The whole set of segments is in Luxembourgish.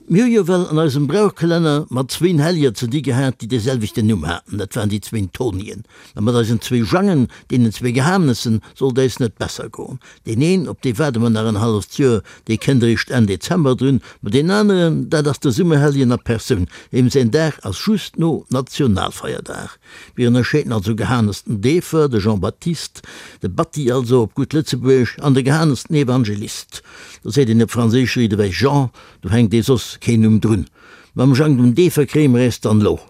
Mir hu jo well an eisem Brauchkalenner mat zwéin Hellier ze di gehat, déi dee selwechten Numm haten, dat waren déi zwéin Tonien. Mä mat eisen zwéi Jangen, deenen zwee Gehanessen, sollt äis net besser goen. Deen een, op dee waarde mer nach en halleft Joer, dee kënnt eréischt Enn Dezember drun, ma deen aneren, dat ass de Summerhellien a Persoun, deem säin Dag ass just no Nationalfeierdag. Mir ënnerscheeden also Gehanes den Deefer, de Jean-Baptiste, de Batti also op gutt Lëtzebuergesch, an de Gehanes den Evangelist. Do seet een op Franséisch riit ewech Jean, do hänkt ee soss keen Numm drun. Mam Jang dem Deefer kréie mer äis dann lo.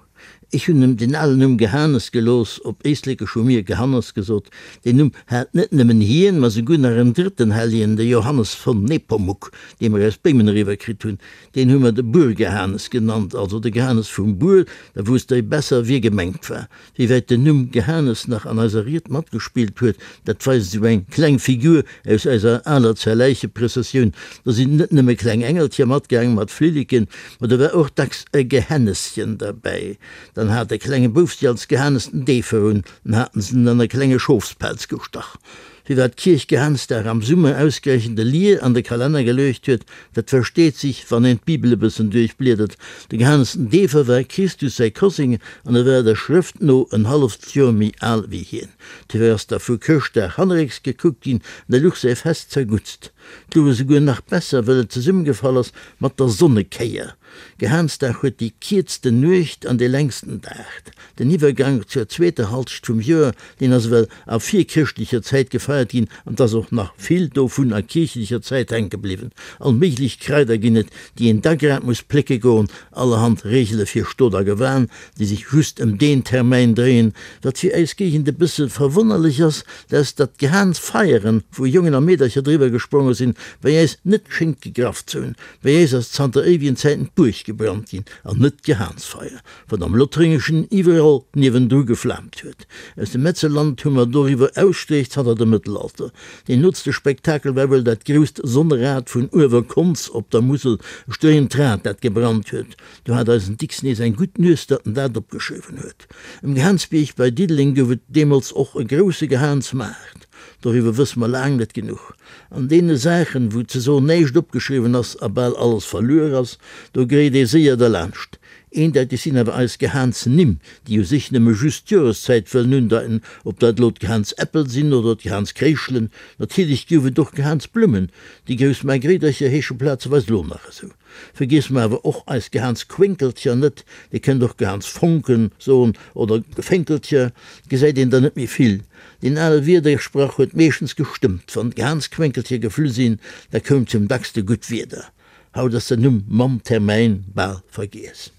Ech hunn em den alen Numm Gehanes gelooss, op Éislekesch hu mir Gehannes gesot. Deen Numm hat net nëmmen hien, ma souguer nach en drëtten Helljen, de Johannes von Nepomuk, dee mer aus Béimen eriwwer kritt hunn. Deen hu mer de Buergehanes genannt, also de Gehanes vum Buer, da wousst der besser, wie gemengt war. Wéi wäit den Numm Gehanes nach an eiser Ried matgespillt huet, dat weist esou eng kleng Figur aus eiser aler Zerläicheprëssessioun. Do sinn net nëmme kleng Engelcher matgaang mat Flilleken, ma do war och dacks e Gehenneschen derbäi. Dann hat e klenge Bouf si als Gehanes den Deefer un, dann haten se en an e klenge Schofspelz gestach. Firwat d'Kierch Gehansdag am Summer ausgerechent e Lier an de Kalenner geluecht huet, dat versteet sich, wann een d'Bibel e bëssen duerchbliedert. De Gehanes den Deefer war Christus säi Koseng an e war der Schrëft no en halleft Joer méi al wéi hien. Dofir ass da vu Chrëschtdag hannerrécks gekuckt ginn an da luch säi Fest zerguttst. Et luch esouguer nach besser, well et zesummegefall ass mat der Sonnekéier. Gehansdag huet déi kierzten Nuecht an dee längsten Dag. Den Iwwergank zur zweeter Halscht vum Joer, deen ass ewell a virchrëschtlecher Zäit gefeiert ginn an 't ass och nach vill dovun a kierchlecher Zäit hänke bliwwen. All méiglech Kraider ginn et, déi een da grad muss plécke goen, allerhand Reegele fir Stot a Gewan, déi sech just ëm deen Termäin dréien. Wat fir eis Géigend e bësse verwonnerlech ass, dat ass, datt d'Gehansfeieren, wou Jongen a Meedercher driwwer gespronge sinn, bei äis net schéngt gegraff ze hunn. Bei äis ass zanter éiwegen Zäiten d'Buerg gebrannt ginn an net d'Gehansfeier. wat am Lothréngeschen iwwerall niewendru geflaamt huet. Aus dem Metzerland hu mer doriwwer Ausstreech zanter dem Mëttelalter. Deen nootste Spektakel war wuel dat grousst Sonnerad vun Uewerkonz op der Musel, e stréiend Rad, dat gebrannt huet. Do hat eisen Dicks nees eng gutt Nues, datt en dat opgeschriwwen huet. Um Gehaansbierg bei Diddeleng gouf et deemools och e grousse Gehaansmaart. Doriwwer wësse mer laang net genuch. An deene Saachen, wou ze soen näischt opgeschriwwen ass a bal alles verluer ass, do gréit ee séier derlaanscht. Eendeiteg sinn awer eis Gehaans-Nimm, déi u sech nëmme just d'Joreszäit wëllen undeiten, ob dat elo d'Gehaans-Äppel sinn oder d'Gehaans-Kréischelen. Natierlech gouf et och Gehaans-Blummen, déi grouss Margréidercher heesche plazeweis elo nach esou. Vergiesse mer awer och eis Gehaans-Quénkelcher net, Dir kënnt och Gehaans-Fonken soen oder Gefénkelcher, gesäit een der net méi vill. Deen ale Wiedersprach huet meeschtens gestëmmt, wann d'Gehaans-Quénkelcher geflu sinn, da koum zum dackste gutt Wieder. Haut ass den Numm mam Termäin bal vergiess.